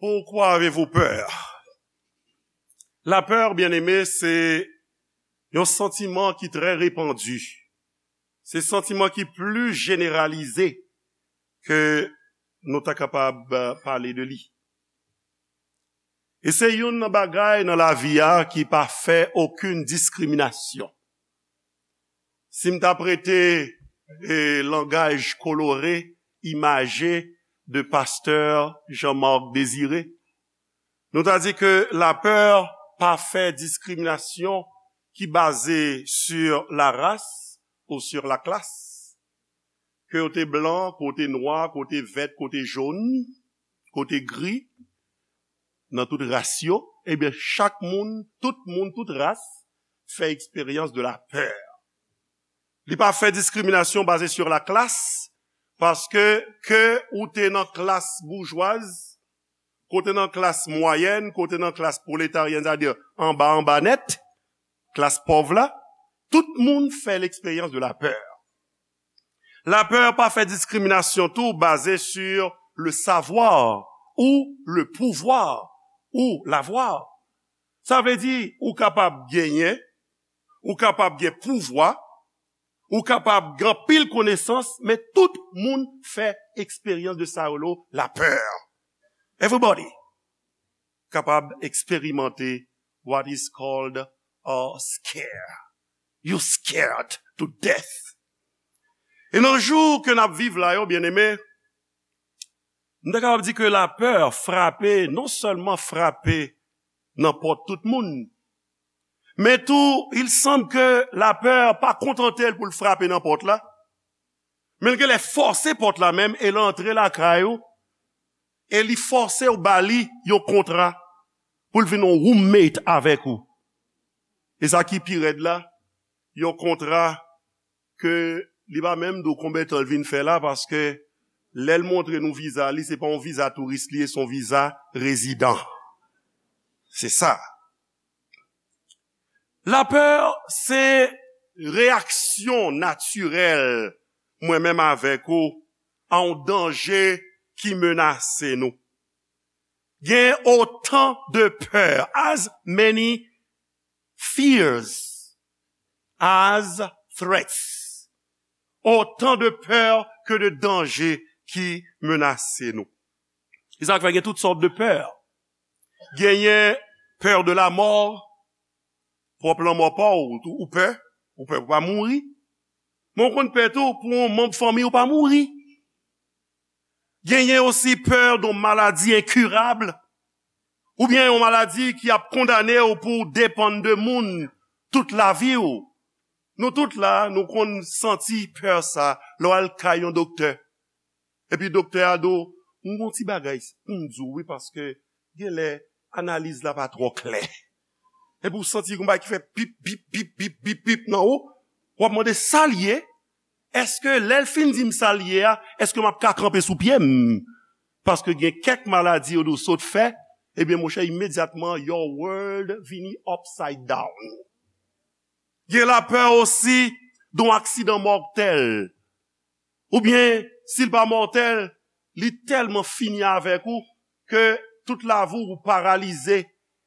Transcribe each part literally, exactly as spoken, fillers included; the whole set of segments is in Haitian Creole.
Pourquoi avez-vous peur? Lapè, byeneme, se yon santiman ki trè repandi. Se santiman ki pli jeneralize ke nou ta kapab, eh, pale de li. E se youn nan bagay nan lavi a ki pa fè okenn diskriminasyon. Si m ta prete, eh, langaj kolore, imaje de pastè Jean-Marc Désiré, nou ta di ke lapè pa fè diskriminasyon ki baze sur la race ou sur la classe. Ke w te blan, ke w te nwa, ke w te vèt, ke w te jòn, ke w te gri, nan tout ras yo, ebyen, chak moun, tout moun, tout ras, fè eksperyans de lapè. Li pa fè diskriminasyon baze sur la classe, paske ke ou te nan klas boujwaz, ke w te nan klas mwayèn, ke w te nan klas pwoletaryèn, sètadi anba, anba nèt, klas pòv la, tout moun fè l'expérience de la peur. Lapè pa fè diskriminasyon tou baze sur le savoir ou le pouvoir ou l'avoir. Sa vle di, ou kapab genyen, ou kapab gen pouvwa, ou kapab gen anpil konesans, men tout moun fè eksperyans de sa yo rele lapè. Everybody kapab eksperimante what is called a scare. You scared to death. E nan jou ke n ap viv la yo, byeneme, m ta kapab di ke lapè frape, non sèlman frape nan pòt tout moun, men tou, il semble ke lapè pa kontante l pou l frape nan pòt la, men l genlè fòse pòt la menm e l antre lakay ou, e li fòse w ba li yon kontra pou l vin yon roommate avèk ou. E sa ki pi rèd la, yon kontra ke li pa menm di w konbyen tan l vin fè la, paske lè l montre nou viza li, se pa yon viza touris li ye, se yon viza rezidan. Se sa. Lapè, se reyaksyon natirèl mwen menm avèk ou a yon danje ki menase nou. Gen otan de pè, as many fears as threats. Otan de pè ke de danje ki menase nou. Se sa k fè gen tout sòt de pè. Genyen pè de la mò, pwòp lanmò pa w, ou, ou pè, ou pè pou pa mouri. Men w konn pè tou pou yon manm fanmi w pa mouri. Genyen osi pè de maladi enkirab, oubyen yon maladi ki ap kondane w pou w depann de moun tout lavi w. Nou tout la, nou konn santi pè sa lè w al kay yon doktè. Epi doktè a di w, "M gon ti bagay pou m di w wi, paske genlè analiz la pa twò klè." Epi w santi gon bagay ki fè pip, pip, pip, pip, pip, pip nan ou. W ap mande sa l ye. Èske lè l fin di m sa l ye a, èske m ap ka kanpe sou pye m? Paske gen kèk maladi yo di w sot fè, ebyen monchè, imedyatman, your world vini upside down. Gen lapè osi de yon aksidan mòtèl. Oubyen, si l pa mòtèl, li tèlman fini avèk ou ke tout lavi w ou paralize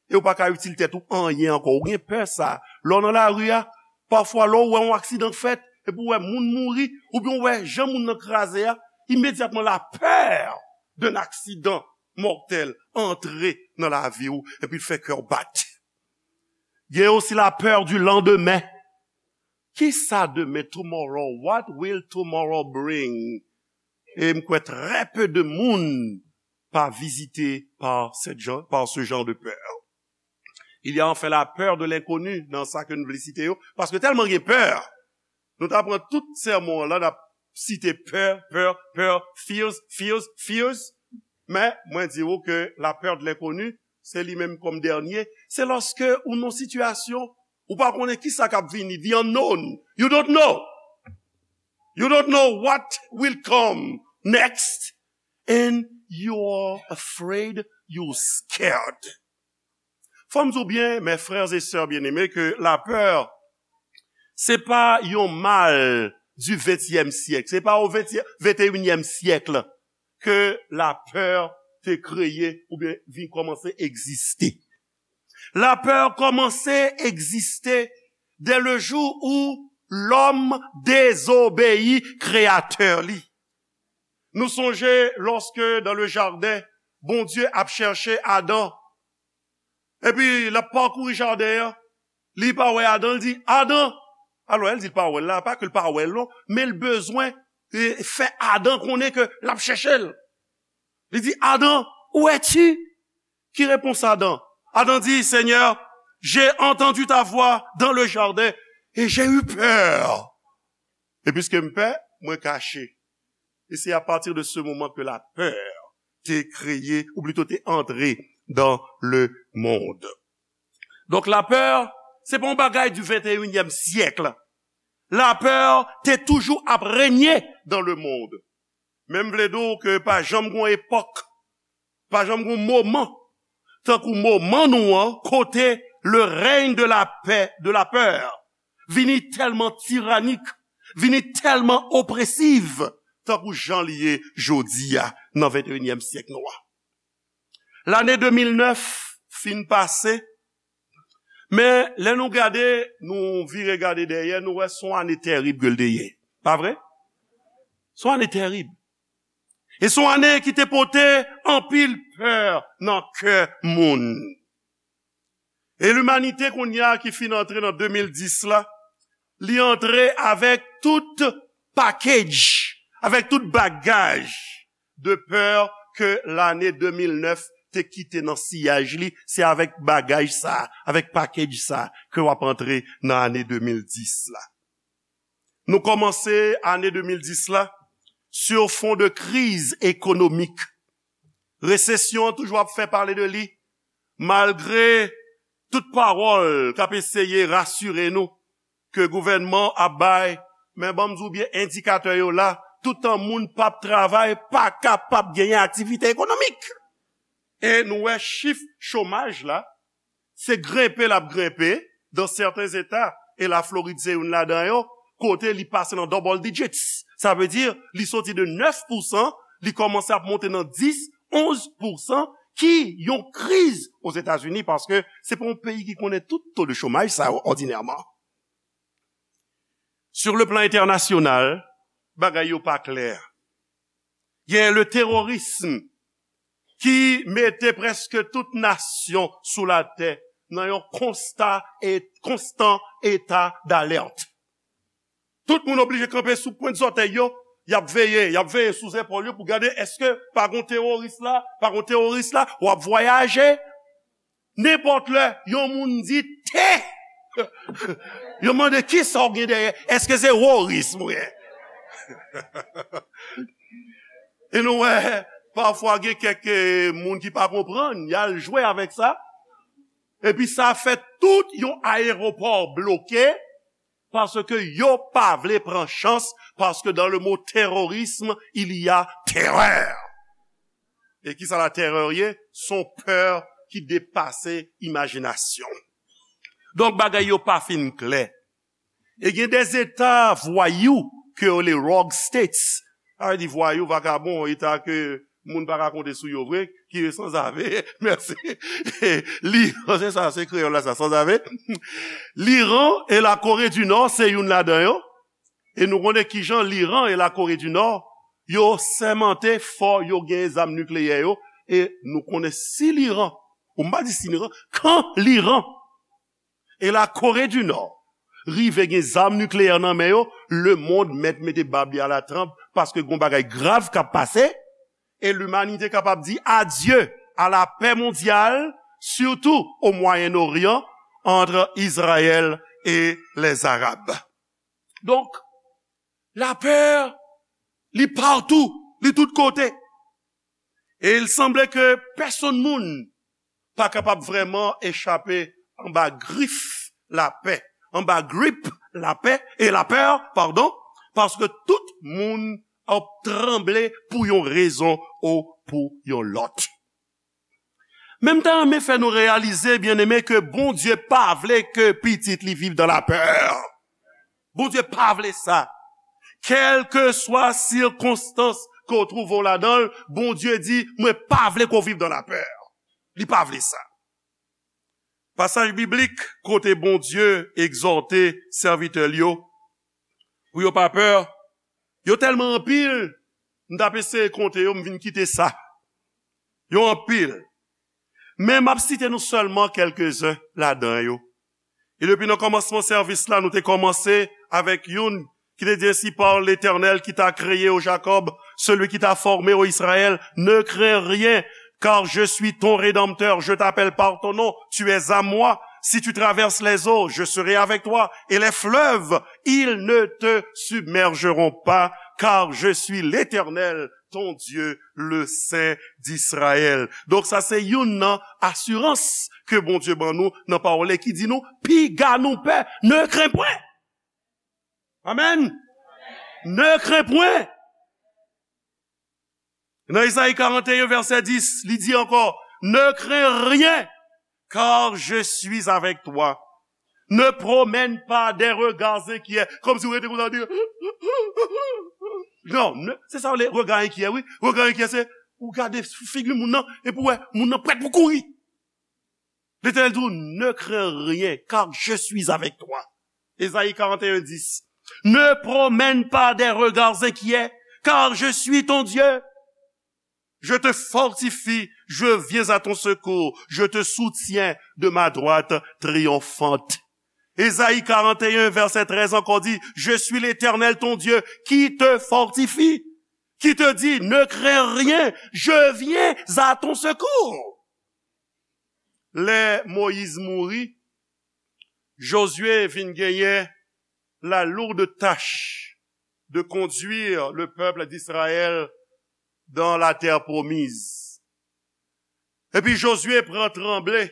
e ou pa ka itil tèt ou anyen ankò. Ou gen pè sa. Lè w nan lari a, pafwa lè w wè yon aksidan fèt, epi w wè moun mouri, oubyen w wè jan moun nan kraze a, imedyatman lapè d'un accident mortel antre nan lavi w, epi l fè kè w bat. Gen osi lapè du lendemain. Kisa demen, tomorrow? What will tomorrow bring? E m kwè trè pe de moun pa vizite par cette gen-, par ce genre de peur. Il y a enfin la peur de l'inconnu dans sa ke nou vle site yo, paske tèlman gen pè. Nou ta pran tout sèmon an la, n ap site pè, pè, pè, fears, fears, fears. Men, mwen di w ke la peur de l'inconnu, se li menm kòm dènye. Se lòske ou nan sitiyasyon, ou pa konnen kisa k ap vini, the unknown. You don't know. You don't know what will come next. And you are afraid, you scared. Fò m di w byen, mes frères et sœurs bien-aimés, ke lapè, se pa yon mal du ventyèm syèk. Se pa o ventyèm, venteyinyèm syèk ke lapè te kreye oubyen vin kòmanse egziste. Lapè kòmanse egziste dès le jour où l'homme désobéit Kreyatè li. Nou sonje lòske dans le jardin, Bondye ap chèche Adan. Epi l ap pakouri jaden an, li pa wè Adan, li di, Adan! Alò, lè l di l pa wè l la, pa ke l pa wè l non, men l bezwen e, fè Adan konnen ke l ap chèche l. Li di, Adan, où es-tu? Ki repons Adan? Adan di, Seigneur, j'ai entendu ta voix dans le jardin et j'ai eu peur. E piske m pè, mwen kache. E se apati de se moman ke lapè te kreye, ou plito te antre dans le monde. Donk lapè, se pa yon bagay du vingt et unième siècle. Lapè te toujou ap renye dans le monde. Men m vle di w ke pa janm gon epòk, pa janm gon moman, tankou moman nou an, kote le règne de la paix, de la peur, vini tèlman tiranik, vini tèlman opresiv, tankou jan li ye jodi a nan venteyinyèm syèk nou an. Lane de mil nèf fin pase, men lè nou gade, nou vire gade dèyè, nou wè se yon ane tèrib ke l te ye. Pa vre? Se yon ane tèrib. E se yon ane ki te pote anpil pè nan kè moun. E limanite kounye a ki fin antre nan de mil dis la, li antre avèk tout package, avèk tout bagaj de pè ke lane de mil nèf te kite nan siyaj li, se avèk bagaj sa, avèk package sa ke w ap antre nan ane de mil dis la. Nou kòmanse ane de mil dis la sur fond de kriz ekonomik. Resesyon an toujou ap fè pale de li, malgre tout pawòl k ap eseye rasire nou ke gouvènman ap bay, men ban m di w byen, endikatè yo la, toutan moun p ap travay, pa kapab genyen aktivite ekonomik. E nou wè chif chomaj la, se grenpe l ap grenpe dans certains États, e Laflorid se youn ladan yo, kote li pase nan double digits. Sa vle di, li soti de nèf pousan, li kòmanse ap monte nan dis, onz pousan, ki yon kriz Ozetazini, paske se pa yon peyi ki konnen tout to de chomaj sa yo òdinèman. Sur le plan international, bagay yo pa klè. Gen le terrorisme ki mete prèske tout nasyon sou latè nan yon konsta e konstan eta d'alerte. Tout moun oblije kanpe sou pwent zòtèy yo, y ap veye, y ap veye sou zepòl yo pou gade èske pa gon teworis la, pa gon teworis la, w ap vwayaje. Nenpòt lè, yon moun di te, yo mande kisa w gen dèyè, èske se woris mwen? E nou wè, pafwa gen kèk eh, moun ki pa konprann, y al jwe avèk sa. Epi sa fè tout yon ayewopò bloke, paske yo pa vle pran chans, paske dans le mot terrorisme, il y a terreur. E kisa la terè ye? Se yon pè ki depase imajinasyon. Donk, bagay yo pa fin klè. E gen de eta vwayou ke yo le rogue states. Sa vle di vwayou, vakabon, eta ke moun pa ka konte sou yo vre, ki yo sanzave. Mèsi. Li, se sa, se kreyòl la sa, sanzave. Liran e Lakore di Nò se youn ladan yo. E nou konnen kijan Liran e Lakore di Nò, yo sèmante fò yo gen zam nikleyè yo. E nou konnen si Liran, ou m pa di si Liran, kan Liran e Lakore di Nò rive gen zam nikleyè nan men yo, lemonn mèt mete bab li alatranp, paske gon bagay grav k ap pase, e limanite kapab di adye a la pè mondyal, sitou o Mwayen Oryan, ant Izrayèl e lèzarab. Donk, lapè, li patou, li tout kote. E il sanble ke pèsonn moun pa kapab vrèman echape anba grif lapè, anba grip lapè, e lapè, padon, paske tout moun ap tranble pou yon rezon ou pou yon lòt. Men m ta renmen fè nou reyalize, byeneme, ke Bondye pa vle ke pitit li viv dan lapè. Bondye pa vle sa. Kèlkeswa sikonstans ke w twouve w ladan l, Bondye di, mwen pa vle ke w viv dans la peur. Li pa vle sa. Pasaj biblik kote Bondye egzòte sèvitè l yo pou yo pa pè, yo tèlman anpil, m t ap eseye konte yo, m vin kite sa. Yo anpil. Men m ap site nou sèlman kèlkezen ladan yo. E depi nan kòmansman sèvis la, nou te kòmanse avèk youn ki te di, ainsi parle l'Éternel qui t'a créé, ô Jacob, celui qui t'a formé, ô Israël, ne crains rien, car je suis ton rédempteur, je t'appelle par ton nom, tu es à moi. Si tu traverses les eaux, je serai avec toi, et les fleuves, ils ne te submergeront pas, car je suis l'Éternel, ton Dieu, le Saint d'Israël. Donk sa se youn nan asirans ke Bondye ban nou nan pawòl li ki di nou, piga nou pè, ne crains point. Amen. Ne crains point. Nan Ezayi karant e en, vèsè dis, li di ankò, ne crains rien, car je suis avec toi. Ne promène pas des regards inquiets, kòmsi w rete konsa di, non, ne, se sa w rele rega enkyè, wi. Rega enkyè, se, ou gade figi moun nan, epi w wè, moun nan prèt pou kouri. Letènèl di w, ne crains rien, car je suis avec toi. Ezayi karant e en dis. Ne promène pas des regards inquiets, car je suis ton Dieu. Je te fortifie, je viens à ton secours, je te soutiens de ma droite triomphante. Ezayi karant e en, vèsè trèz ankò di, je suis l'Éternel ton Dieu qui te fortifie, qui te dit, ne crains rien, je viens à ton secours. Lè Moyiz mouri, Jozye vin genyen la lourde tâche de conduire le peuple d'Israël dans la terre promise. Epi Jozye pran tranble,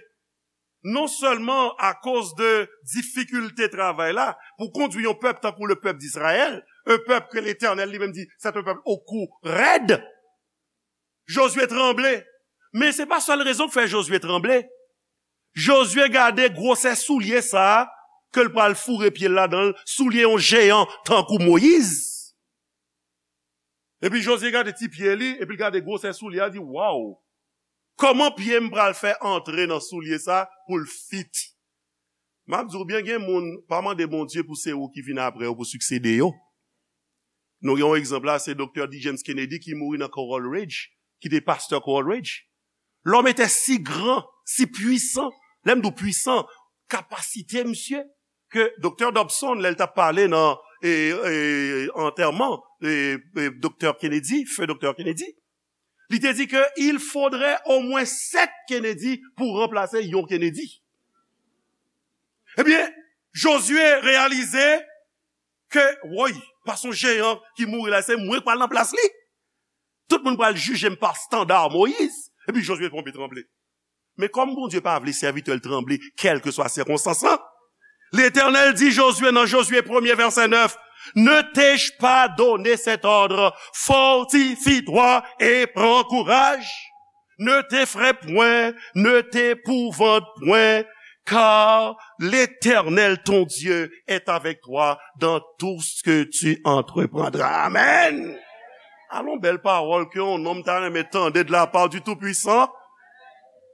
non sèlman akoz de difikilte travay la, pou kondui yon pèp tankou le pèp d'Israël, un peuple que l'Éternel li menm di, c'est un peuple au cou raide. Jozye tranble. Men se pa sèl rezon k fè Jozye tranble. Jozye gade gwosè soulye sa a ke l pral foure pye l ladan l, soulye yon jeyan tankou Moyiz. Epi Jozye gade ti pye li, epi l gade gwosè soulye a, di, waw! Kòman pye m pral fè antre nan soulye sa pou l fit? M ap di w byen, gen moun, pa mande Bondye pou se ou ki vin apre yo pou siksede yo. Nou gen yon egzanp la, se Doktè D. James Kennedy ki mouri nan Coral Ridge, ki te pastè Coral Ridge. L'homme était si grand, si puissant. Lè m di w pwisan, kapasite misye, ke Doktè Dobson, lè l t ap pale nan, e, e, antèman, e, e, Doktè Kennedy, feu Doktè Kennedy, li te di ke il faudrait au moins sept Kennedy pou ranplase yon Kennedy. Ebyen, Jozye reyalize ke, woy, pa son jeyan ki mouri la, se mwen k pral nan plas li. Tout moun pral jije m pa estanda Moyiz. Epi Jozye tonbe tranble. Men kòm Bondye pa vle sèvitè l tranble, kèlkeswa sikonstans lan, Letènèl di Jozye nan Jozye premye vèsè nèf, ne t'ai-je pas donné cet ordre? Fortifie-toi et prends courage. Ne t'effraie point, ne t'épouvante point, car l'Éternel ton Dieu est avec toi dans tout ce que tu entreprendras. Amen. Alon bèl pawòl ke yon nonm ta renmen tande de la part du Tout-Puissant.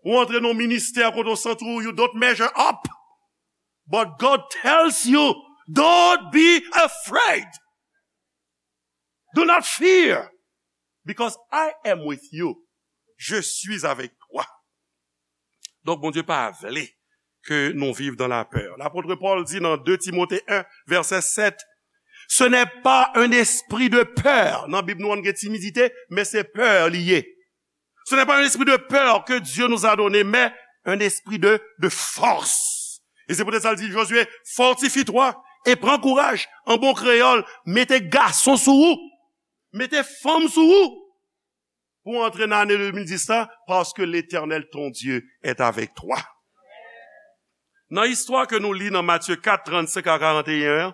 Ou antre nan ministè kote w santi w, you don't measure up. But God tells you, don't be afraid. Do not fear, because I am with you. Je suis avec toi. Donk, Bondye pa vle ke nou viv dans la peur. Lapot Pòl di nan de Timote en, vèsè sèt, ce n'est pas un esprit de peur. Nan Bib nou an gen timidite, men se pè li ye. Ce n'est pas un esprit de peur que Dieu nous a donné, mais un esprit de, de force. E se poutèt sa l di Jozye, fortifie-toi et prends courage. An bon kreyòl, mete gason sou ou. Mete fanm sou ou. Pou antre nan ane de mil dis la, parce que l'Éternel ton Dieu est avec toi. Nan istwa ke nou li nan Matye kat, trannsenk a karanteyen an,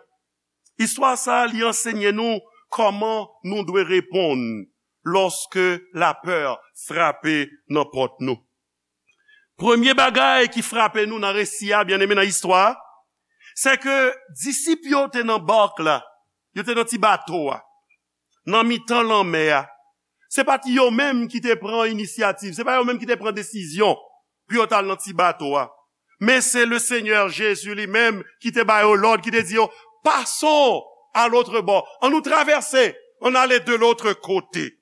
istwa sa a, li ansenye nou kòman nou dwe reponn lòske lapè frape nan pòt nou. Premye bagay ki frape nou nan resi a, byeneme, nan istwa a, se ke disip yo te nan bak la, yo te nan ti bato a, nan mitan lanmè a. Se pa t yo menm ki te pran inisyativ, se pa yo menm ki te pran desizyon pou yo t al nan ti bato a. Men se le Senyè Jezi li menm ki te ba yo lòd, ki te di yo, "Passons à l'autre bord, ann nou travèse, ann ale de l'autre côté."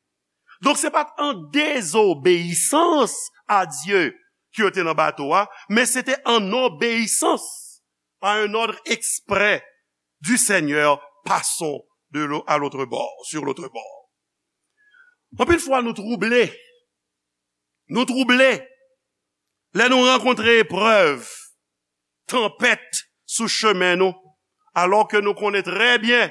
Donk, se pa t an dezobeyisans a Dye ke yo te nan bato a, men se te an obeyisans a un ordre exprès du Seigneur, "Passons de l'au-, à l'autre bord, sur l'autre bord." Anpil fwa, nou twouble. Nou twouble lè nou rankontre eprèv, tanpèt sou chemen nou, alò ke nou konnen trè byen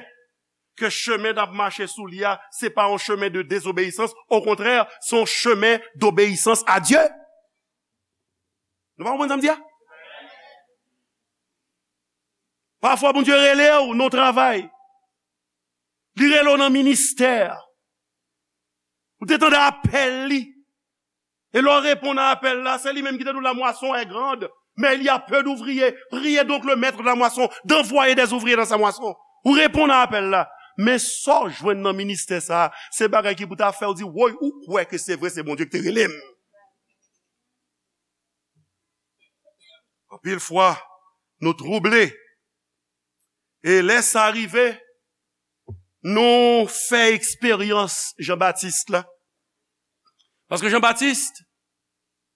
ke chemen n ap mache sou li a, se pa yon chemen de dezobeyisans, okontrè, se yon chemen dobeyisans a Dye. Nou pa konprann sa m di a? Pafwa, Bondye rele w nan travay. Li rele w nan ministè. Ou te tande apèl li. E lè w reponn a apèl la, se li menm ki te di w, "La moisson est grande, mais il y a peu d'ouvriers. Priez donc le maître de la moisson d'envoyer des ouvriers dans sa moisson." Ou reponn a apèl la. Men sa w jwenn nan ministè sa a, se bagay ki pou ta fè w di, "Woy, ou kwè ke se vre, se Bondye ki te rele m." Anpil fwa, nou twouble. E lè sa rive, nou fè eksperyans Jan Batis la. Paske Jan Batis,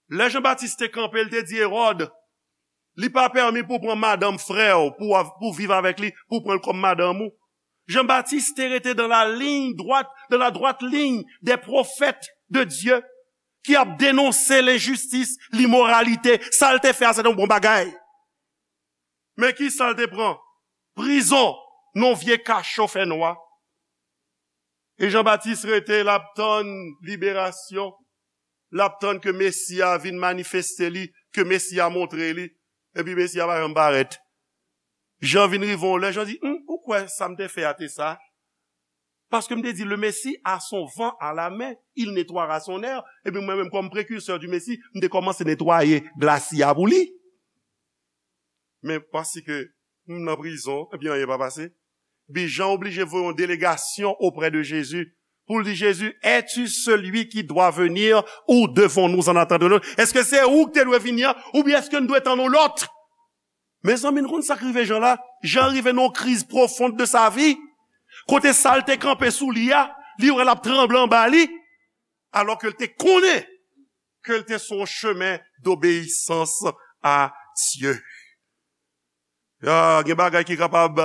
lè Jan Batis te kanpe, l te di Ewòd, "Li pa pèmi pou w pran madanm frè w, pou w av-, pou w viv avèk li, pou w pran l kòm madanm ou." Jan Batis te rete dans la ligne droite, dans la droite ligne des prophètes de Dieu, ki ap denonse lenjistis, limoralite, sa l te fè a, se te yon bon bagay. Men ki sa l te pran? Prizon, nan vye kacho fè nwa. E Jan Batis rete, l ap tann liberasyon, l ap tann ke Mesi a vin manifeste li, ke Mesi a montre li, epi Mesi a pa janm parèt. Jan vin rive yon lè, Jan di, "Hum, ou kwè sa m te fè a te sa?" Paske m te di, "Le Messie a son vent à la main, il nettoiera son air." Epi mwen menm, kòm prekirsè di Mesi, m te kòmanse netwaye glasi a pou li. Men paske m nan prizon, epi anyen pa pase. Epi Jan oblije voye yon delegasyon oprè de Jezi pou l di, "Jezi, es-tu celui qui doit venir ou devons-nous en attendre un autre?" Èske se ou ki te dwe vini an, oubyen èske n dwe tann yon lòt? Mezanmi, n konn sa k rive Jan la? Jan rive nan yon kriz pwofon de sa vi. Kote sa l te kanpe sou li a, li wè l ap tranble anba li, alò ke l te konnen ke l te sou yon chemen dobeyisans a Dye. Ya, gen bagay ki kapab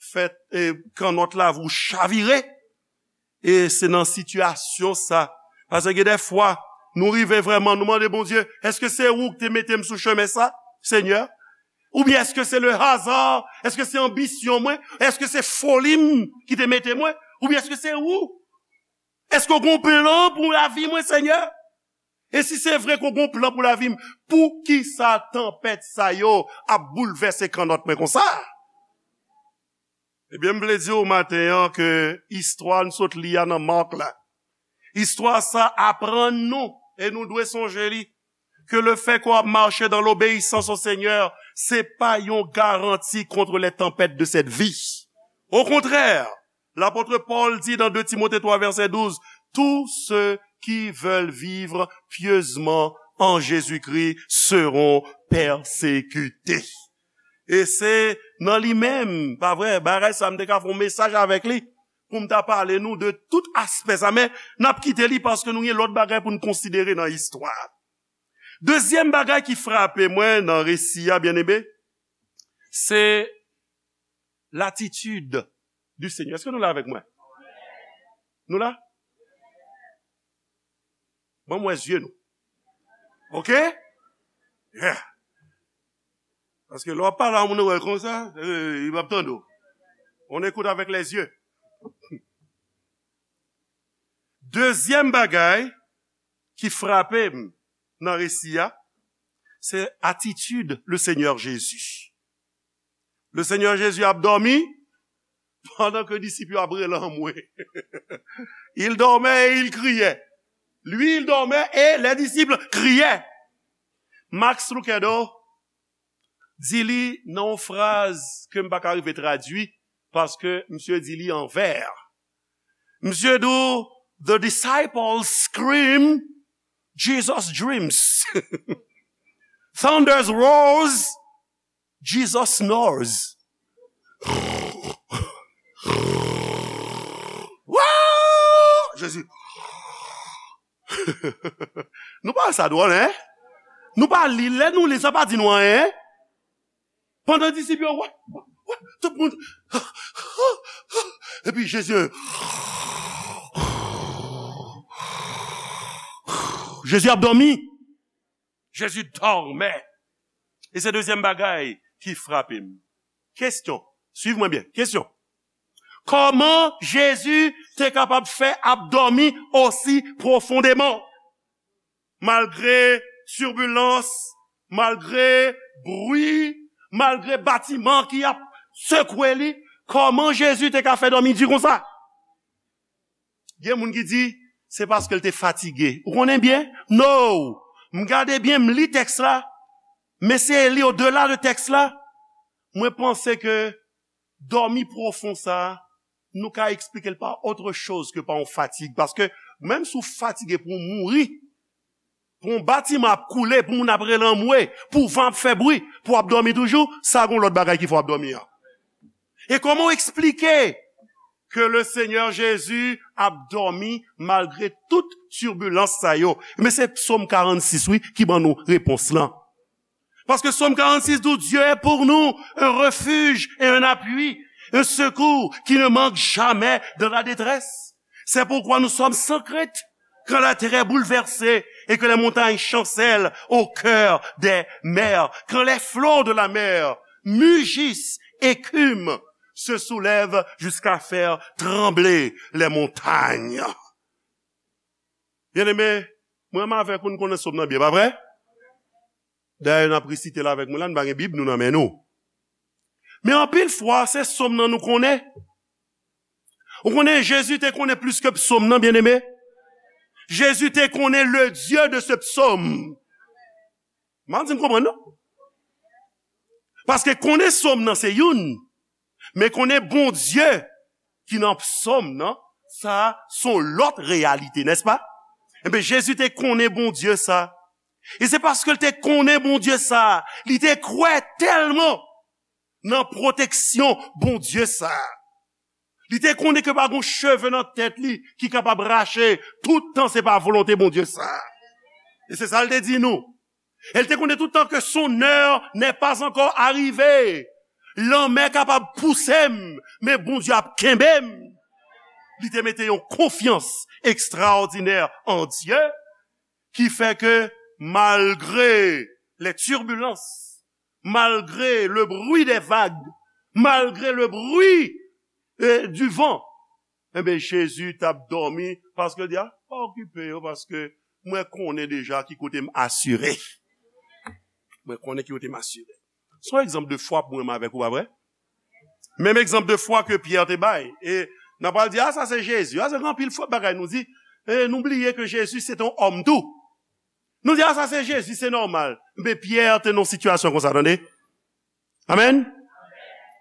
fè, e, kannòt lavi w chavire. E se nan sitiyasyon sa. Paske gen de fwa, nou rive vrèman, nou mande Bondye, "Èske se ou ki te mete m sou chemen sa, Senyè? Oubyen èske se le hasard? Èske se anbisyon mwen? Èske se foli m ki te mete mwen? Oubyen èske se ou? Èske w gen yon plan pou lavi mwen, Senyè?" E si se vre ke w gen yon plan pou lavi m, poukisa tanpèt sa yo ap boulvèse kannòt mwen konsa? Ebyen, m vle di w maten an ke istwa n sot li a nan Mak la, istwa sa aprann nou, e nou dwe sonje li, ke le fè ke w ap mache dans l'obéissance au Seigneur, se pa yon garanti contre les tempêtes de cette vie. Au contraire, l'apôtre Paul dit dans deux Timothée trois verset douze, "Tous ceux qui veulent vivre pieusement en Jésus-Christ seront persécutés." E se nan li menm, pa vre, bagay sa m te ka fè yon mesaj avèk li, pou m ta pale nou de tout aspè sa, men n ap kite li paske nou gen lòt bagay pou n konsidere nan istwa. Dezyèm bagay ki frape mwen nan resi a, byeneme, se latitid du Seigneur. Èske nou la avèk mwen? Nou la? Ban m wè zye nou. Oke? Yeah. Paske lè w ap pale a moun, ou wè l konsa, eh, li p ap tande w. On écoute avec les yeux. Dezyèm bagay ki frape m nan resi a, se atitid le Seigneur Jésus. Le Seigneur Jésus ap dòmi pandan ke disip yo ap rele anmwe. Il dormait et il criait. Lui, il dormait et les disciples criaient. Max Lucado di li nan yon fraz ke m pa ka rive tradui, paske misye di li an vè. Misye di w, The disciples scream, Jesus dreams. Thunders roars, Jesus snores. Wouw! Jezi. Nou pa wè sa dwòl, en? Nou pa li, lè nou li, sa pa di nou anyen, en? Pandan disip yo, wè, wè, tout moun. Epi Jezi, Jezi ap dòmi. Jezi dòmè. E se dezyèm bagay ki frape m. Kesyon. Swiv mwen byen. Kesyon. Kòman Jezi te kapab fè ap dòmi osi pwofondeman? Malgre tibilans, malgre bri, malgre batiman ki ap sekwe li, kòman Jezi te ka fè dòmi di konsa? Gen moun ki di, se paske l te fatige. Ou konnen byen? No! M gade byen, m li tèks la, m eseye li odela de tèks la. Mwen panse ke dòmi pwofon sa a, nou ka eksplike l pa otre choz ke pa yon fatig. Paske menm si w fatige pou w mouri, pou yon batiman ap koule, pou moun ap rele anmwe, pou van ap fè bri, pou w ap dòmi toujou, sa gon lòt bagay ki fè w ap dòmi an. E kòman w eksplike ke le Senyè Jezi ap dòmi malgre tout tibilans sa yo? Men se Sòm karannsis, wi, ki ban nou repons lan. Paske Sòm karannsis di w, Dieu est pour nous un refuge et un appui, un secours qui ne manque jamais dans la détresse. C'est pourquoi nous sommes sans crainte quand la terre est bouleversée et que les montagnes chancellent au cœur des mers, quand les flots de la mer mugissent, écument, se soulèvent jusqu'à faire trembler les montagnes. Byeneme, mwen menm avèk ou, nou konnen Sòm nan byen, pa vre? Dayè, n ap resite l avèk mwen la, nou pa gen Bib nou nan men nou. Men anpil fwa, se Sòm nan nou konnen. Ou konnen, Jezi te konnen plis ke Sòm nan, byeneme. Jezi te konnen le Dieu de ce psaume. M pa di m konprann, non. Paske konnen Sòm nan se youn, men konnen Bondye ki nan Sòm nan, sa a se yon lòt reyalite, nèspa? Enben, Jezi te konnen Bondye sa. E se paske l te konnen Bondye sa, li te kwè tèlman nan pwoteksyon Bondye sa. Li te konnen ke pa gon cheve nan tèt li ki kapab rache, tout tan se pa volonte Bondye sa. E se sa l te di nou. E l te konnen tout tan ke son heure n'est pas encore arrivée. Lanmè kapab pouse m, men Bondye ap kenbe m. Li te mete yon konfyans ekstraòdinè an Dye ki fè ke malgre les turbulences, malgre le bruit des vagues, malgre le bruit, eh, du vent, enben, Jezi t ap dòmi paske l di, a, pa okipe yo, paske mwen konnen deja ki kote m asire. Mwen konnen ki kote m asire. Se yon egzanp de fwa pou mwen avèk ou, pa vre? Menm egzanp de fwa ke Pyè te bay. E n ap pral di, a, sa se Jezi. A, se gen anpil fwa bagay nou di. E nou bliye ke Jezi se te yon òm tou. Nou di, a, sa se Jezi, se nòmal. Men Pyè te nan yon sitiyasyon konsa, tande. Amèn.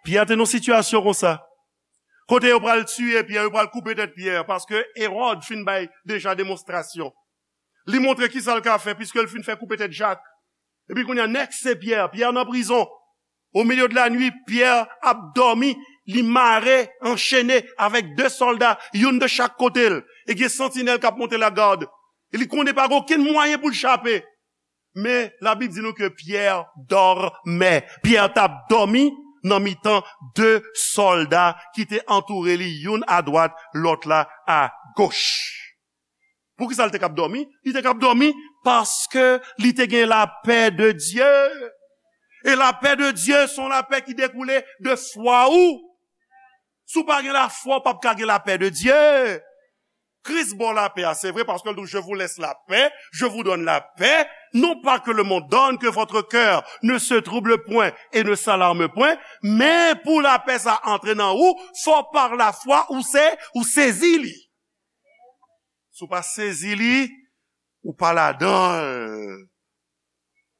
Pyè te nan yon sitiyasyon konsa. Kote yo pral tiye Pyè, yo pral koupe tèt Pyè, paske Ewòd fin bay deja demonstrasyon. Li montre kisa l ka fè, piske l fin fè koupe tèt Jak. Epi kounye a, nèks se Pyè. Pyè nan prizon. O milye de la nwi, Pyè ap dòmi, li mare, anchene avèk de sòlda, youn de chak kote l. E gen santinèl k ap monte lagad. E li konnen pa gen okenn mwayen pou l chape. Men, Labib di nou ke Pyè dòmè. Pyè t ap dòmi nan mitan de sòlda ki te antoure li, youn adwat, lòt la agoch. Poukisa l te k ap dòmi? Li te k ap dòmi paske li te gen lapè de Dye. E lapè de Dye se yon lapè ki dekoule de fwa ou. Si w pa gen lafwa, w p ap ka gen lapè de Dye. Kris ba w lapè a, se vre, paske l di, je vous laisse la paix, je vous donne la paix, non pas que le monde donne, que votre cœur ne se trouble point et ne s'alarme point, men pou lapè sa antre nan ou, fò pa lafwa ou se, ou sezi li. Si w pa sezi li, ou pa ladan l.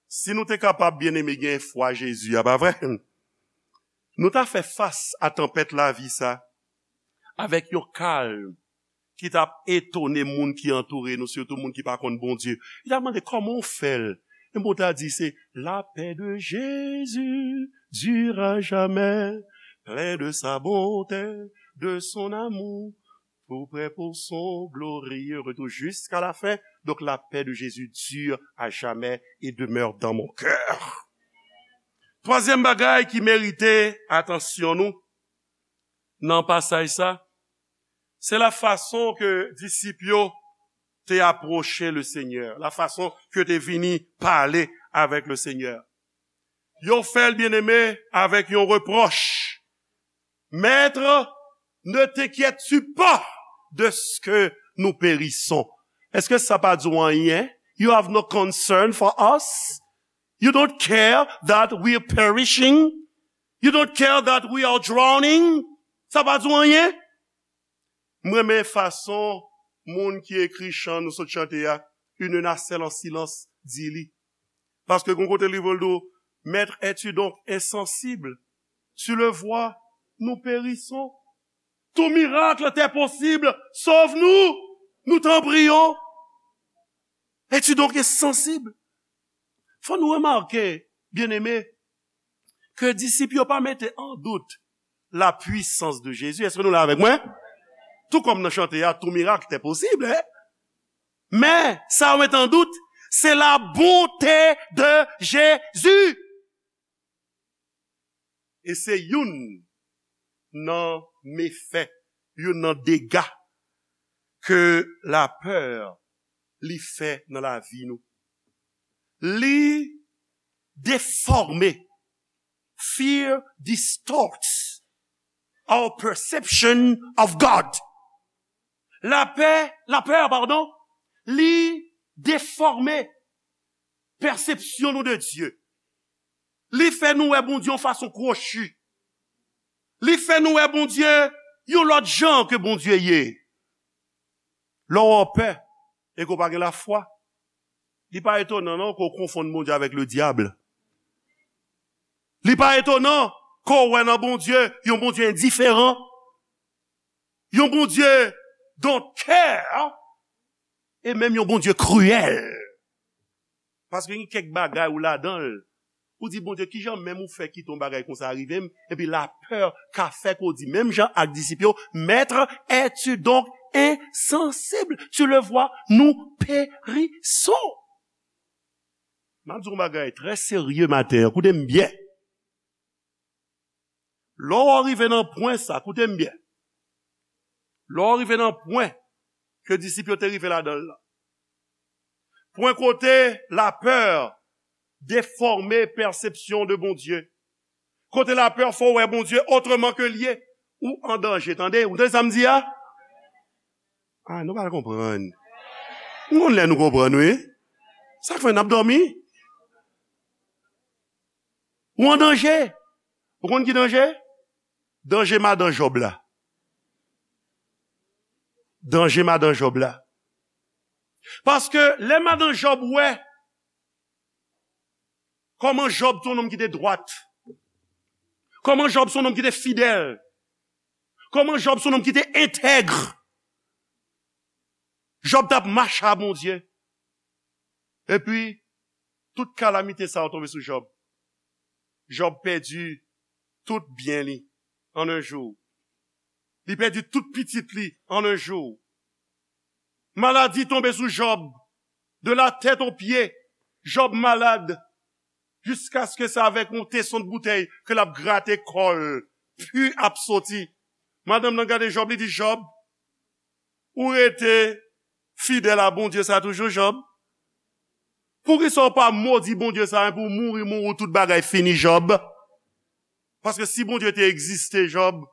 Si nou te kapab, byeneme, gen fwa Jezi a, pa vre? Nou ta fè fas a tanpèt lavi sa avèk yon kalm ki t ap etone moun ki antoure nou, sitou moun ki pa konn Bondye. Yo t ap mande, "Kòman w fè l?" Epi Bondye a di, "C'est la paix de Jésus dure à jamais, plein de sa bonté, de son amour, tout prêt pour son glorieux retour jusqu'à la fin. Donc la paix de Jésus dure à jamais et demeure dans mon cœur." Twazyèm bagay ki merite atansyon nou nan pasaj sa, se la fason ke disip yo te apwoche le Senyè, la fason ke te vini pale avèk le Senyè. Yo fè l, byeneme, avèk yon repwòch. Maître, ne t'inquiètes-tu pas de ce que nous périssons? Èske sa pa di w anyen? You have no concern for us? You don't care that we are perishing? You don't care that we are drowning? Sa pa di w anyen? M renmen fason moun ki ekri chan nou sot chante a, Une nacelle en silence, di li. Paske gon kote li voye l di w, Maître, es-tu donc insensible? Tu le vois, nous périssons. Tout miracle t'est possible, sauve-nous, nous t'en prions. Es-tu donc insensible? Fò nou remake, byeneme, ke disip yo pa mete an dout la puissance de Jésus. Èske nou la avèk mwen? Tou kòm nan chante a, tout miracle t'est possible, hein? Men, sa yo mete an dout, se la bonté de Jésus. E se youn nan mefè, youn nan dega ke lapè li fè nan lavi nou. Li defòme. Fear distorts our perception of God. Lapè, lapè, padon, li defòme pèsepsyon nou de Dye. Li fè nou wè Bondye yon fason kwochi. Li fè nou wè Bondye yon lòt jan ke Bondye ye. Lè w pè e ke w pa gen lafwa, li pa etonan non ke w konfonn Bondye avèk ledyab. Li pa etonan ke w wè nan Bondye yon Bondye endiferan, yon Bondye don't care, e menm yon Bondye kriyèl. Paske gen kèk bagay ou ladan l, ou di, "Bondye, kijan menm ou fè kite yon bagay konsa rive m?" Epi lapè ka fè ke w di, menm jan ak disip yo, "Maître, es-tu donc insensible? Tu le vois, nous périssons." M ap di w yon bagay trè serye maten an, koute m byen. Lè w rive nan pwen sa, koute m byen. Lè w rive nan pwen ke disip yo te rive ladan l la. Pwen kote lapè defòme pèsepsyon de Bondye. Kote lapè fè w wè Bondye otreman ke l ye. Ou an danje, tande. Ou tande sa m di a? Ah, nou pa konprann. M konn lè nou konprann, wi. Sa k fè n ap dòmi? Ou an danje. Ou konn ki danje? Danje madan Jòb la. Danje madan Jòb la. Paske lè madan Jòb wè kòman Jòb se yon nonm ki te dwat, kòman Jòb se yon nonm ki te fidèl, kòman Jòb se yon nonm ki te entèg, Jòb t ap mache a Bondye. Epi, tout kalamite sa yo tonbe sou Jòb. Jòb pèdi tout byen li an yon jou. Li pèdi tout pitit li an yon jou. Maladi tonbe sou Jòb. De la tèt o pye, Jòb malad. Jiskaske se avèk yon teson de boutèy ke l ap grate kò l. Pi ap soti. Madanm nan gade Jòb, li di, "Jòb, ou rete fidèl a Bondye sa toujou, Jòb? Poukisa w pa modi Bondye sa a, pou w mouri, mouri, tout bagay fini, Jòb? Paske si Bondye te egziste, Jòb,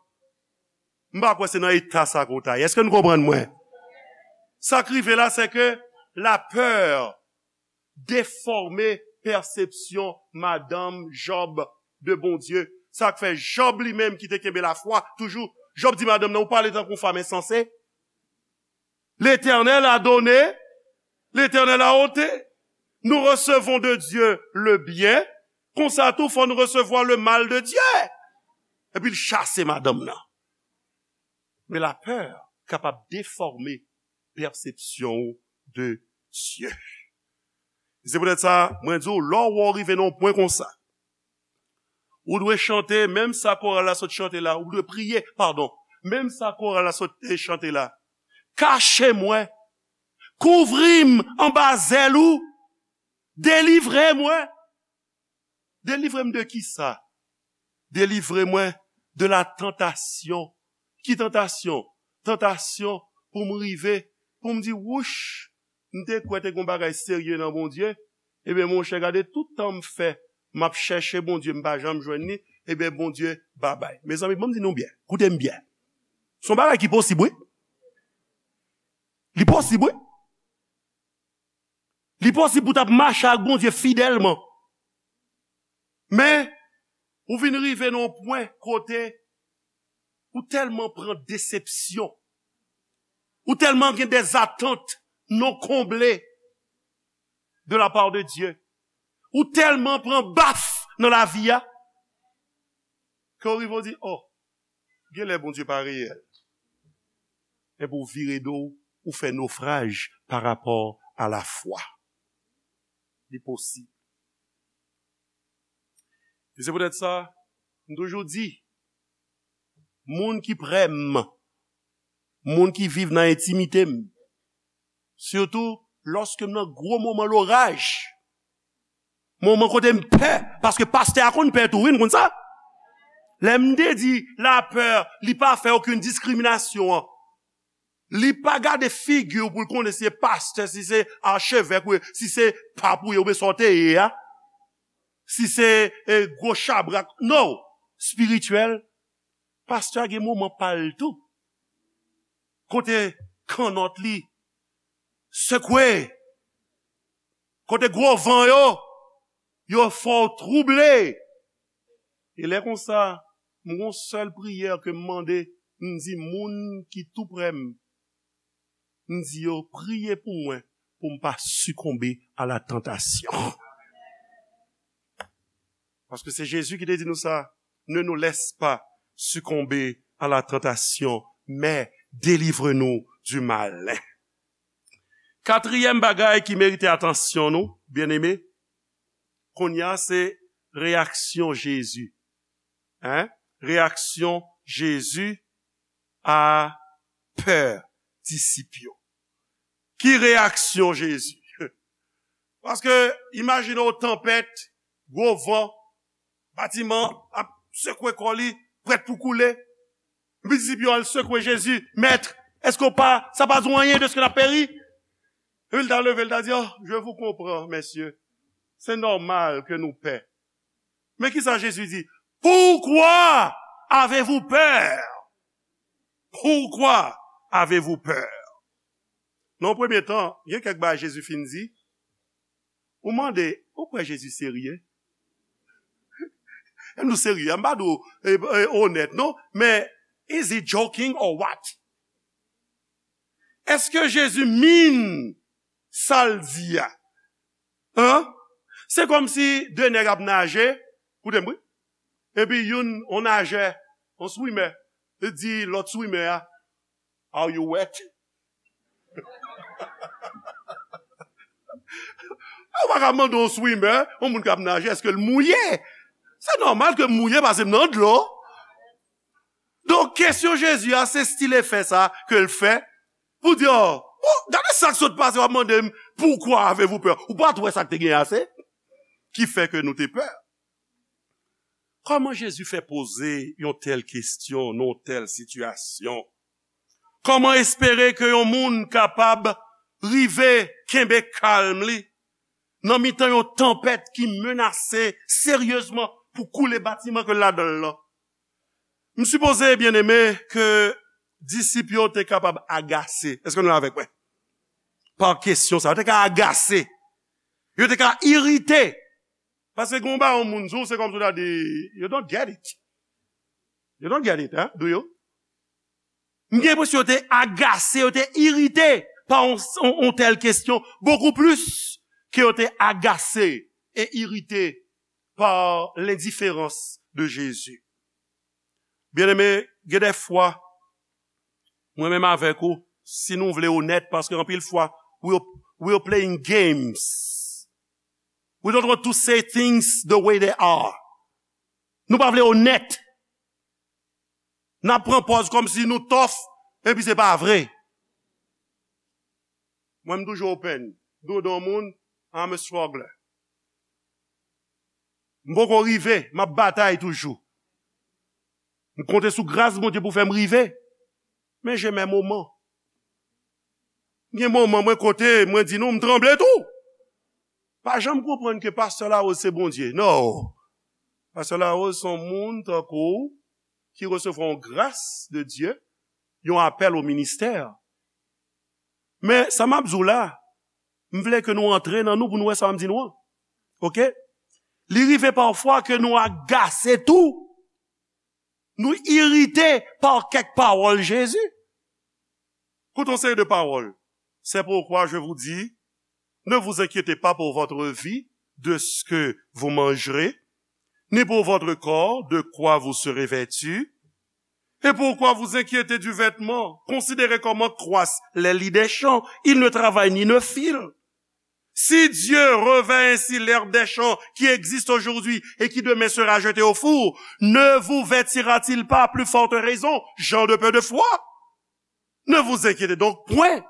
m pa kwè se nan eta sa ke w ta ye." Èske nou konprann mwen? Sa k rive la, se ke lapè defòme pèsepsyon madanm Jòb de Bondye. Sa k fè Jòb li menm ki te kenbe lafwa toujou, Jòb di madanm nan, "Ou pale tankou yon fanm ensanse. L'Éternel a donné, l'Éternel a ôté. Nous recevons de Dieu le bien, konsa tou fò nou resevwa le mal de Dieu." Epi l chase madanm nan. Men lapè kapab defòme pèsepsyon w de Dye. Se poutèt sa, mwen di w, lè w wè w rive nan yon pwen konsa, ou dwe chante, menm sa koral la sot chante la, ou dwe priye, padon, menm sa koral la sot, eh, chante la. Kache mwen, kouvri m anba zèl ou, delivre mwen. Delivre m de kisa? Delivre mwen de la tantasyon. Ki tantasyon? Tantasyon pou m rive, pou m di, wouch, m te kwè te gen yon bagay serye nan Bondye. Ebyen, monchè, gade tout tan m fè, m ap chèche Bondye, m pa janm jwenn li. Ebyen, Bondye, babay. Mezanmi, ban m di nou byen. Koute m byen. Se yon bagay ki posib, wi. Li posib, wi. Li posib pou w t ap mache ak Bondye fidèlman. Men, ou vin rive nan yon pwen kote ou tèlman pran desepsyon, ou tèlman gen des attentes non comblées de la part de Dieu, ou tèlman pran baf nan lavi a, ke w rive w di, oh, genlè Bondye pa reyèl. Epi w vire do w, ou fè nofraj pa rapò a lafwa. Li posib. E se poutèt sa, m toujou di, moun ki prè m, moun ki viv nan entimite m, sitou lòske m nan gwo moman loraj, moman kote m pè, paske pastè a konn pè tou, wi, n konn sa. Lè m te di lapè, li pa fè okenn diskriminasyon an. Li pa gade figi w pou l konnen si se pastè, si se achevèk, wi, si se pap ou ye, oubyen sa w te ye a. Si se, eh, gwo chabrak. No! Espirityèl, pastè a gen moman pa l tou. Kote kannòt li sekwe. Kote gwo van yo, yo fè w twouble. E lè konsa, m gon sèl priyè ke m mande, m di moun ki tou prè m, m di yo priye pou mwen, pou m pa sikonbe a la tantasyon. Paske se Jezi ki te di nou sa, ne nous laisse pas succomber à la tentation, mais délivre-nous du mal. Katriyèm bagay ki merite atansyon nou, byeneme, kounye a se reyaksyon Jezi. Hein? Reyaksyon Jezi a pè disip yo. Ki reyaksyon Jezi? Paske, imajine w tanpèt, gwo van, batiman ap sekwe kò li, prèt pou koule. Epi disip yo al sekwe Jezi, Mèt, èske w pa, sa pa di w anyen dèske n ap peri? Epi l ta leve, l ta di, oh, je vous comprends, messieurs. C'est normal que nous peur. Men kisa Jezi di? Pourquoi avez-vous peur? Pourquoi avez-vous peur? Nan premye tan, gen kèk bagay Jezi fin di, ou mande, ou kwè Jezi serye? M di w serye, m pa di w, eh, eh, onèt, non, men is he joking or what? Èske Jezi mean sa l di a? Hein? Se kòmsi de nèg ap naje, koute m wi, epi youn, on najè, on swimè, li di lòt swimè a, are you wet? Ou pa ka mande yon swimè, yon moun k ap naje, èske l mouye? Se nòmal ke m mouye paske m nan dlo. Donk, kesyon Jezi a, se stil efè sa ke l fè pou di, oh, oh, gade sa k sot pase, w ap mande m, pourquoi avez-vous peur? Ou pa t wè sa k te gen ase ki fè ke nou te pè? Kòman Jezi fè poze yon tèl kesyon nan yon tèl sitiyasyon? Kòman espere ke yon moun kapab rive kenbe kalm li nan mitan yon tanpèt ki menase seryezman pou koule batiman ke l ladan l lan? M sipoze, byeneme, ke disip yo te kapab agase. Èske nou la avèk mwen? Pa kesyon sa, yo te ka agase. Yo te ka irite. Paske gen yon bagay yon moun di w, se kòmsi w ta di, you don't get it. You don't get it, hein? Do you? M gen enpresyon yo te agase, yo te irite pa yon, yon, yon tèl kesyon, bokou plis ke yo te agase e irite pa lendiferans de Jezi. Byeneme, gen de fwa, Mwen menm avèk ou, si nou vle onèt, paske anpil fwa, we're, we're playing games. We don't want to say things the way they are. Nou pa vle onèt. N ap pran pòz kòmsi nou tough, epi se pa vre. Mwen, m toujou open. Dodon moun, I'm a struggler. M poko rive, m ap batay toujou. M konte sou gras Bondye pou fè m rive. Men j'ai mes moments. Gen moman mwen kote, mwen di nou, m tranble tou. Pa janm konprann ke Pastè Larose se Bondye. Non. Pastè Larose se yon moun tankou w ki resevwa yon gras de Dye, yon apèl o ministè. Men sa m ap di w la, m vle ke nou antre nan nou pou nou wè sa m di nou an. Oke? Li rive pafwa ke nou agase tou. Nou irite pa kèk pawòl Jezi. Koute yon seri de pawòl. C'est pourquoi je vous dis, ne vous inquiétez pas pour votre vie, de ce que vous mangerez, ni pour votre corps, de quoi vous serez vêtu. Et pourquoi vous inquiéter du vêtement? Considérez comment croissent les lys des champs. Ils ne travaillent ni ne filent. Si Dieu revêt ainsi l'herbe des champs qui existe aujourd'hui et qui demain sera jetée au four, ne vous vêtira-t-il pas à plus forte raison, gens de peu de foi? Ne vous inquiétez donc point,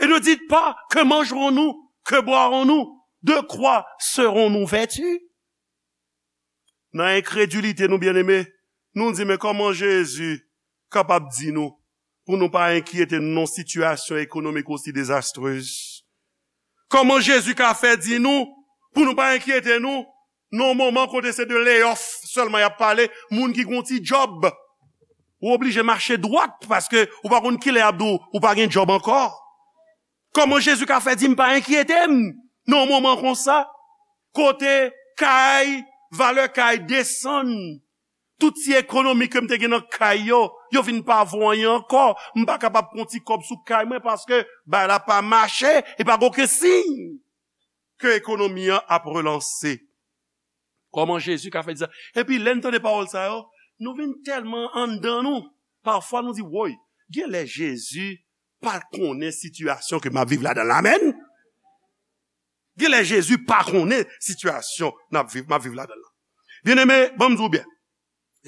et ne dites pas, que mangerons-nous, que boirons-nous, de quoi serons-nous vêtus? Nan enkredilite nou, byeneme, nou di, men kòman Jezi kapab di nou pou nou pa enkyete nou nan yon sitiyasyon ekonomik osi dezastrez? Kòman Jezi ka fè di nou pou nou pa enkyete nou nan yon moman kote se de layoff sèlman y ap pale, moun ki gon ti djòb, ou oblije mache dwat paske ou pa konn kilè y ap di w ou pa gen djòb ankò? Kòman Jezi ka fè di m pa enkyete m nan yon moman konsa? Kote kay, valè kay desann. Tout ti ekonomi ke m te gen nan kay yo, yo vin pa vo anyen ankò. M pa kapab pran ti kòb sou kay mwen paske bagay la pa mache e pa gen okenn siy ke ekonomi an ap relanse. Kòman Jezi ka fè di sa? Epi lè n tande pawòl sa yo, nou vin tèlman anndan nou, pafwa nou di, woy, genlè Jezi pa konnen sitiyasyon ke m ap viv ladan l la, amèn? Genlè Jezi pa konnen sitiyasyon n ap viv, m ap viv ladan l la. Byeneme, ban m di w byen.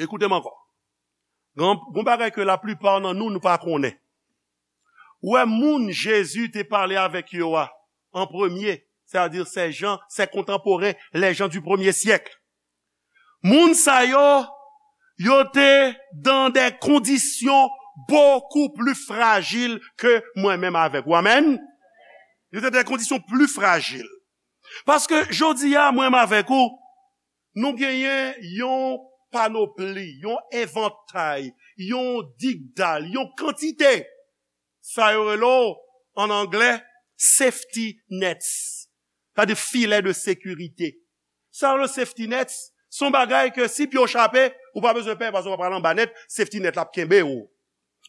Ekoute m ankò. Gon, gon bagay ke laplipa nan nou, nou pa konnen. Ou wè moun Jezi te pale avèk yo a, an premye, c'est-à-dire ces gens, ses contemporains, les gens du premier siècle. Moun sa yo, yo te dans des conditions beaucoup plus fragiles que mwen menm avèk ou. Amèn? Yo te dans des conditions plus fragiles. Paske jodi a, mwen menm avèk ou, nou genyen yon panopli, yon evantay, yon digdal, yon kantite. Sa yo rele w, an anglè, safety nets. Sa di filet de sécurité. Sa yo rele safety nets, se yon bagay ke si pye w chape, ou pa bezwen pè, paske w pa pral anba nèt, safety net la ap kenbe w.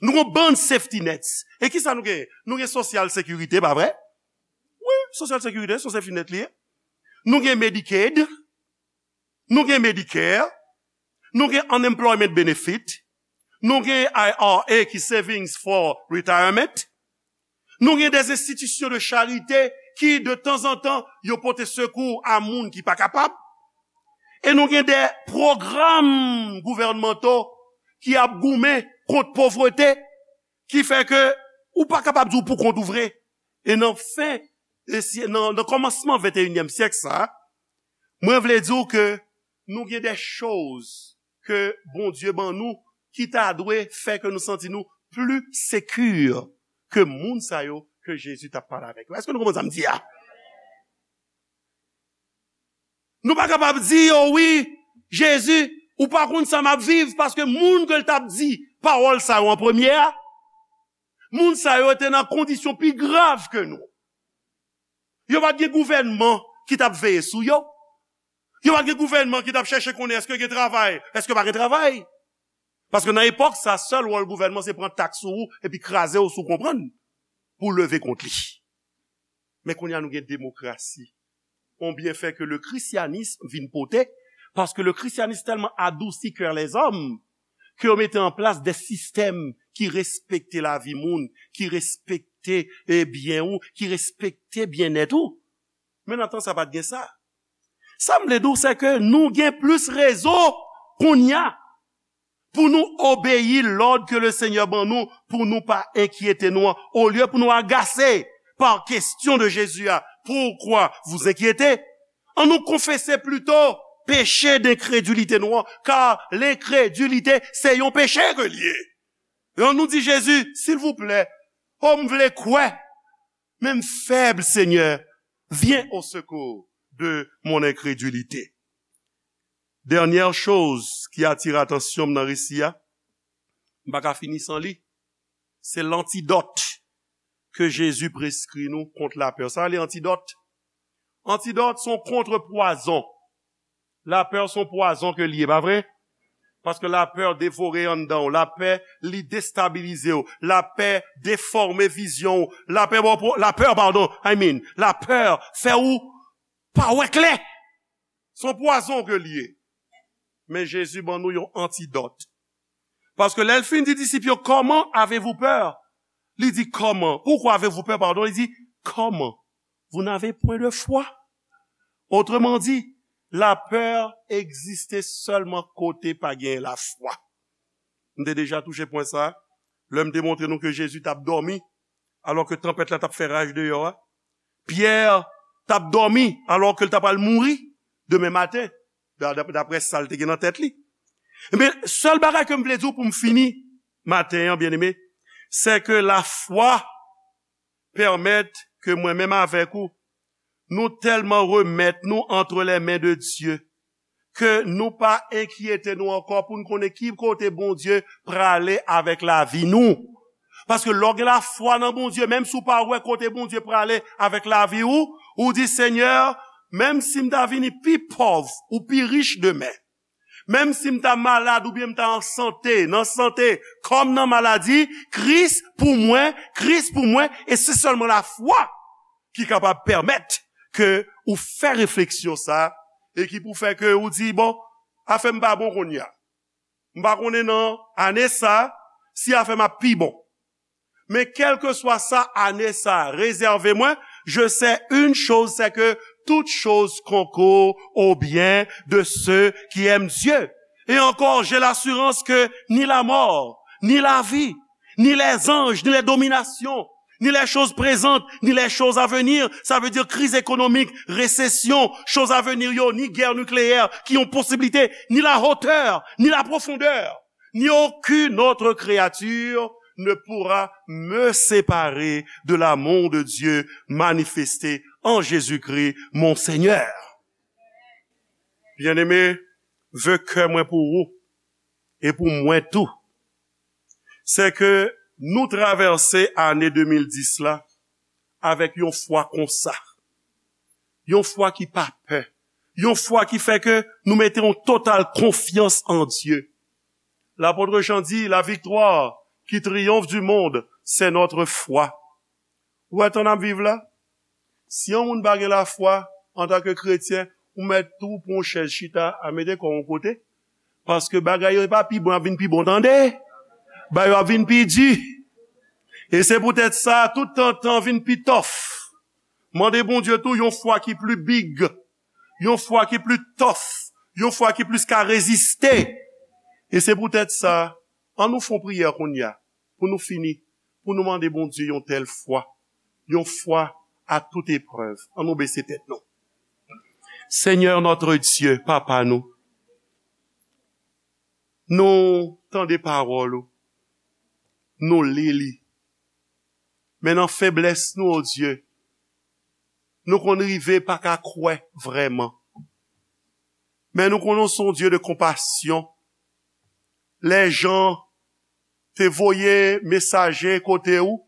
Nou gen yon bann safety nets. E kisa nou genyen? Nou gen sosyal sekirite, pa vre? Wi, sosyal sekirite, se yon safety net li ye. Nou gen Medicaid, nou gen Medicare, nou gen unemployment benefit, nou gen I R A ki savings for retirement, nou gen des institutions de charité ki de tanzantan yo pote sekou a moun ki pa kapab, e nou gen de pwogram gouvènmanto ki ap goumen kont povrete, ki fè ke ou pa kapab di w poukont ou vre. E nan fen, e si, nan, nan kòmansman venteyinyèm syèk sa, mwen vle di w ke nou gen de choz ke Bondye ban nou ki ta dwe fè ke nou santi nou pli sekir ke moun sa yo ke Jezi t ap pale avèk yo. Èske nou konprann sa m di a? Nou pa kapab di yo, wi, Jezi, ou pa konn sa m ap viv, paske moun ke l t ap di pawòl sa yo an premye a, moun sa yo te nan kondisyon pi grav ke nou. Yo pa t gen gouvènman ki t ap veye sou yo. Yo pa t gen gouvènman ki t ap chèche konnen èske gen travay, èske pa gen travay. Paske nan epòk sa, sèl wòl gouvènman se pran taks sou ou epi kraze w si w konprann pou w leve kont li. Men kounye a nou gen demokrasi. On byenfè ke le christianisme vin pote, paske le christianisme tèlman adousi kè lèzòm, ke yo mete an plas de sistèm ki respekte lavi moun, ki respekte, e, byen ou, ki respekte byennèt ou. Men nan tan sa pa t gen sa. Sa m vle di w, se ke nou gen plis rezon kounye a pou nou obeyi lòd ke le Senyè ban nou, pou nou pa enkyete nou an, olye pou nou agase pa kesyon de Jezi a. Pourquoi vous inquiéter? An nou konfese plito peche denkredilite nou an, kar lenkredilite se yon peche ke l ye. E an nou di Jezi, silvouplè, o m vle kwè, men m fèb, Senyè, viens au secours de mon incrédulité. Dènyè choz ki atire atansyon m nan resi a, m pa ka fini san li, se lantidòt ke Jezi preskri nou kont lapè. Sa rele antidòt. Antidòt se yon kontrepwazon. Lapè se yon pwazon ke l ye, pa vre? Paske lapè devore anndan w, lapè li destabilize w, lapè defòme vizyon w, lapè, bon, lapè, padon, I mean, lapè fè w pa wè klè. Se yon pwazon ke l ye. Men Jezi ban nou yon antidòt. Paske lè l fin di disip yo, comment avez-vous peur? Li di, comment? Pourquoi avez-vous peur? Pardon, li di, comment? Vous n'avez point de foi. Autrement dit, lapè egziste sèlman kote pa gen lafwa. M te deja touche pwen sa a, lè m te montre nou ke Jezi t ap dòmi, alò ke tanpèt la t ap fè raj deyò a. Pyè t ap dòmi, alò ke l ta pral mouri demen maten, da-, da-, daprè sa l te gen nan tèt li. Ebyen, sèl bagay ke m vle di w pou m fini maten an, byeneme, se ke lafwa pèmèt ke mwen menm avèk ou, nou tèlman remèt nou entre les mains de Dieu, ke nou pa enkyete nou ankò pou n konnen ki kote Bondye prale avèk lavi nou. Paske lè w gen lafwa nan Bondye, menm si w pa wè kote Bondye prale avèk lavi ou, ou di, Senyè, menm si m ta vini pi pòv ou pi rich demen, menm si m ta malad oubyen m ta an sante, nan sante, kòm nan maladi, Kris pou mwen, Kris pou mwen, e se sèlman lafwa ki kapab pèmèt ke ou fè refleksyon sa a, e ki pou fè ke ou di, bon, afè m pa bon kounye a. M pa konnen nan ane sa a, si afè m ap pi bon. Men kèlkeswa sa ane sa a rezève mwen, je sais une chose, c'est que toutes choses concourent au bien de ceux qui aiment Dieu. Et encore, j'ai l'assurance que ni la mort, ni la vie, ni les anges, ni les dominations, ni les choses présentes, ni les choses à venir, sa vle di kriz ekonomik, resesyon, choz a venir yo, ni gè nikleyè ki yon posiblite, ni la hauteur, ni la profondeur, ni aucune autre créature ne pourra me séparer de l'amour de Dieu manifesté en Jésus-Christ, mon Seigneur. Byeneme, ve kè mwen pou ou e pou mwen tou, se ke nou travèse ane de mil dis la avèk yon fwa konsa, yon fwa ki pa pè, yon fwa ki fè ke nou mete yon total konfyans an Dye. Lapot Jan di, la victoire qui triomphe du monde, c'est notre foi. Ou wè tan n ap viv la? Si yon moun pa gen lafwa, antanke kretyen, ou mèt tou pran yon chèz chita a, mete kò w yon kote. Paske bagay yo pa pi bon, ap vin pi bon, tande. Bagay yo ap vin pi di. E se poutèt sa, tout tan, tan vin pi tòf. Mande Bondye tou yon fwa ki pli big, yon fwa ki pli tòf, yon fwa ki plis ka reziste. E se poutèt sa, ann nou fè yon priyè kounye a, pou nou fini, pou nou mande Bondye yon tèl fwa, yon fwa à toute épreuve. Ann nou bese tèt nou. Seigneur notre Dieu, Papa nou, nou tande pawòl ou, nou li li. Men nan feblès nou, o Dye, nou konn rive pa ka kwè vrèman. Men nou konnen w se yon Dye de konpasyon. Lè Jan te voye mesaje kote ou,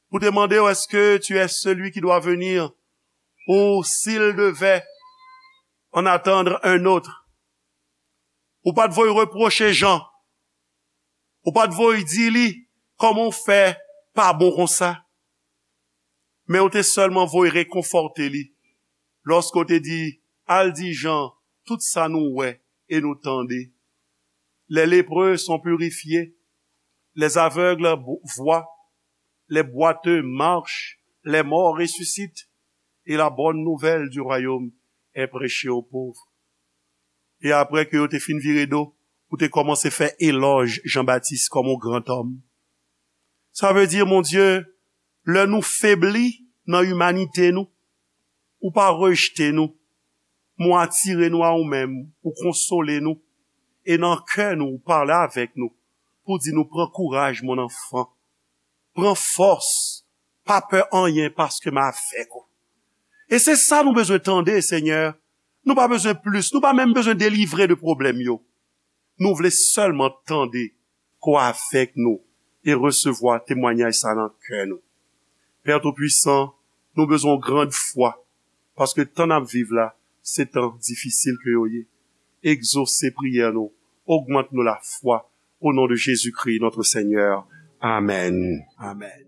pou te mande w, est-ce que tu es celui qui doit venir? Ou, s'il devait en attendre un autre. Ou pa t voye repwoche Jan. Ou pa t voye di li, kòman w fè pa bon konsa? Men ou te sèlman voye rekonfòte li. Lòske w te di, al di Jan tout sa nou wè e nou tande. Les lépreux sont purifiés, les aveugles bo- voient, les boiteux marchent, les morts ressuscitent, et la bonne nouvelle du royaume est prêchée aux pauvres. E apre ke yo te fin vire do, ou te kòmanse fè elòj Jan Batis kòm yon gran òm. Sa vle di, Bondye, lè nou febli nan imanite nou, ou pa rejte nou, men w atire nou a ou menm, ou konsole nou, e nan kè nou, ou pale avèk nou, pou di nou pran kouraj, mon enfant, pran fòs, pa pè anyen paske m avèk ou. E se sa nou bezwen tande, Senyè. Nou pa bezwen plis, nou pa menm bezwen delivre de pwoblèm yo. Nou vle sèlman tande ke w avèk nou e resevwa temwayaj sa nan kè nou. Pè Toupisan, nou bezwen yon gran fwa, paske tan n ap viv la, se tan difisil ke yo ye. Egzose priyè nou, ogmant nou lafwa, au nom de Jésus-Christ, notre Seigneur. Amèn. Amèn.